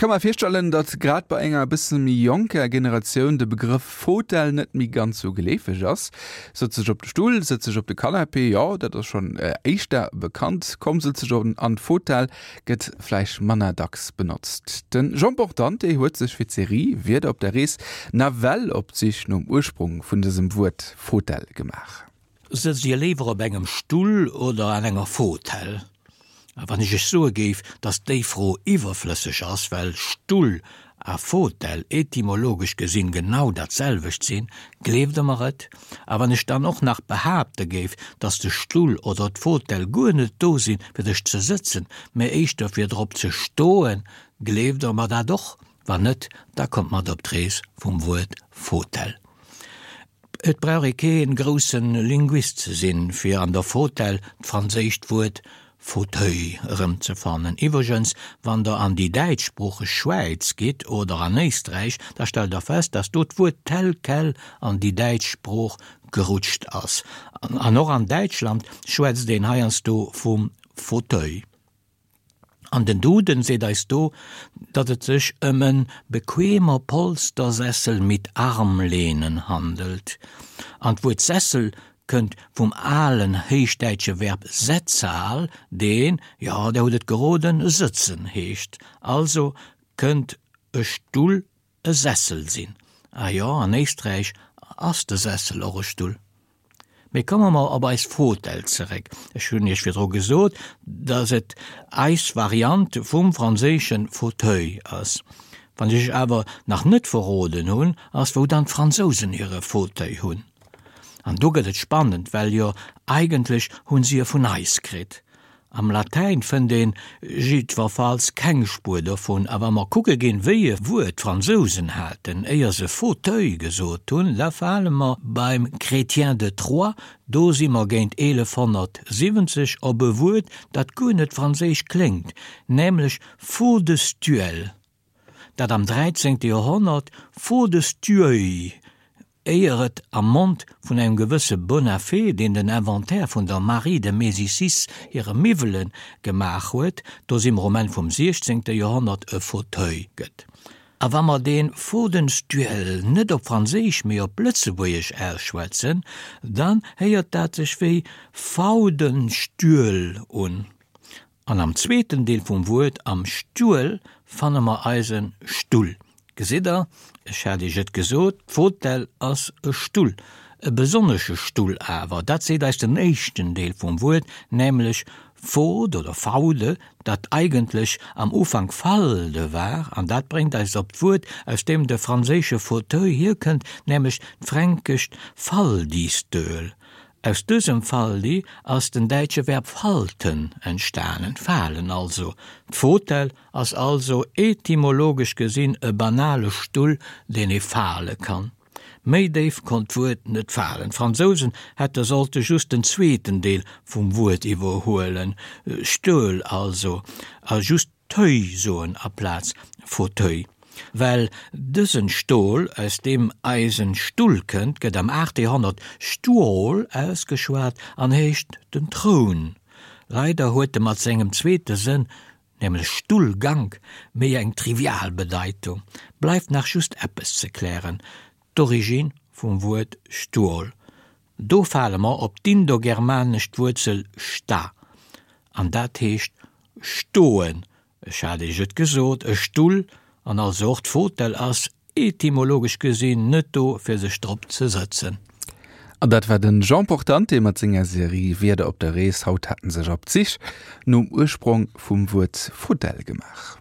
ka mer virstellen, datt grad bei enger e bësse méi jonker Generatioun de Begrëff Fotell net méi ganz sou geleefeg ass. Sëtz dech op de Stull, sëtz dech op de Canapé, jo, dat ass schonn éischter bekannt. Komm, sëtz dech an d'Fotell gëtt vläicht manner dacks benotzt. De Jean Portante huet sech fir d'Serie Wierder op der Rees nawell op d'Sich nom Ursprong vun dësem Wuert Fotell gemaach. Sëtzt Dir léiwer op engem Stull oder an enger Fotell? A wann ech Iech soe géif, datt déi Fro iwwerflësseg ass, well Stull a Fotell etymologesch gesinn genau dat selwecht sinn, gleeft Der mer et? A wann ech dann och nach behaapte géif, datt de Stull oder d'Fotell guer net do sinn, fir sech ze sëtzen, mä éischter fir drop ze stoen, gleeft Der mer dat och? Wann net, da kommt mat op d'Rees vum Wuert Fotell. Et brauch ee kee grousse Linguist ze sinn, fir an der Fotell d'franséischt Wuert Fauteuil erëmzefannen. Iwwregens, wann der an déi däitschsproocheg Schwäiz gitt oder an Éisträich, da stellt der fest, datt do d'Wuert tel quel an déi däitsch Sprooch gerutscht ass. An och an Däitschland schwätzt een heiansdo vum Fauteuil. An den Duden seet eis do, datt et sech ëm en bequemer Polstersessel mit Armlehnen handelt. An d'Wuert Sessel kënnt vum alen héichdäitsche Verb setzal, deen, jo, der hutt et geroden, sëtzen heescht. Also kënnt e Stull e Sessel sinn. Ah jo, an Éisträich ass de Sessel och e Stull. Mee komme mer op eis Fotell zeréck. Ech hunn Iech virdru gesot, datt et eis Variant vum franséische Fauteuil ass. Wann ech Iech awer nach net verroden hunn, ass wou dann d'Fransousen hire Fauteuil hunn. An do gëtt et spannend, well jo eigentlech hunn si e vun eis kritt. Am Latäin fënnt een jiddwerfalls keng Spuer dovun, a wa mer kucke ginn, wéi e Wuert d'Fransousen haten, éier se Fauteuil gesot hunn, da fale mer beim Chrétien de Troyes, do si mer géint 1170, op e Wuert, dat guer net franséisch kléngt, nämlech Faudestuel, dat am dräizéngte Joerhonnert Faudestueuil éier et am Mond vun engem gewësse Bonafé, deen den Inventaire vun der Marie de Médicis hire Miwwele gemaach huet, do si mer um Enn vum siechzéngte Joerhonnert, e Fauteuil gëtt. A wa mer dee Fodenstuel net op Franséisch, mee op Lëtzebuergesch ausschwätzen, dann héiert dat sech wéi Faudenstüel un. An am zweeten Deel vum Wuert, am Stuel, fanne mer eise Stull. Gesitt der, ech hat iech et gesot, d'Fotell ass e Stull. E besonnesche Stull awer, dat seet eis den éischten Deel vum Wuert, nämlech fod oder faude, dat eigentlech am Ufank falde war, an dat bréngt eis op d'Wuert, aus deem de franséische Fauteuil hierkënnt, nämlech d'fränkescht Faldistöl. Aus dësem Faldi ass den däitsche Verb falten entstanen, falen also. D'Fotell ass also etymologesch gesinn e banale Stull, deen ee fale kann. Méi déif konnt d'Wuert net falen. D'Fransousen hätte sollte just den zweeten Deel vum Wuert iwwerhuelen, Stuel also, a just Teuil soen aplaz Fauteuil. Well dësen Stol, aus deem eisen Stull kënnt, gëtt am 8. Joerhonnert Stuol ausgeschwat an heescht den Troun. Leider huet e mat sengem zweete Sënn, nämlech Stullgank, méi eng trivial Bedeitung. Bleift nach just eppes ze klären, d'Origine vum Wuert Stuol. Do fale mer op d'indogermanescht Wuerzel sta, an dat heescht stoen. Ech hat Iech et gesot, e Stull, an also och d'Fotell, ass etymologesch gesinn net do fir sech drop ze sëtzen. An dat war den Jean Portante mat senger Serie Wierder op der Rees. Haut hat en sech op d'Sich nom Ursprong vum Wuert Fotell gemaach.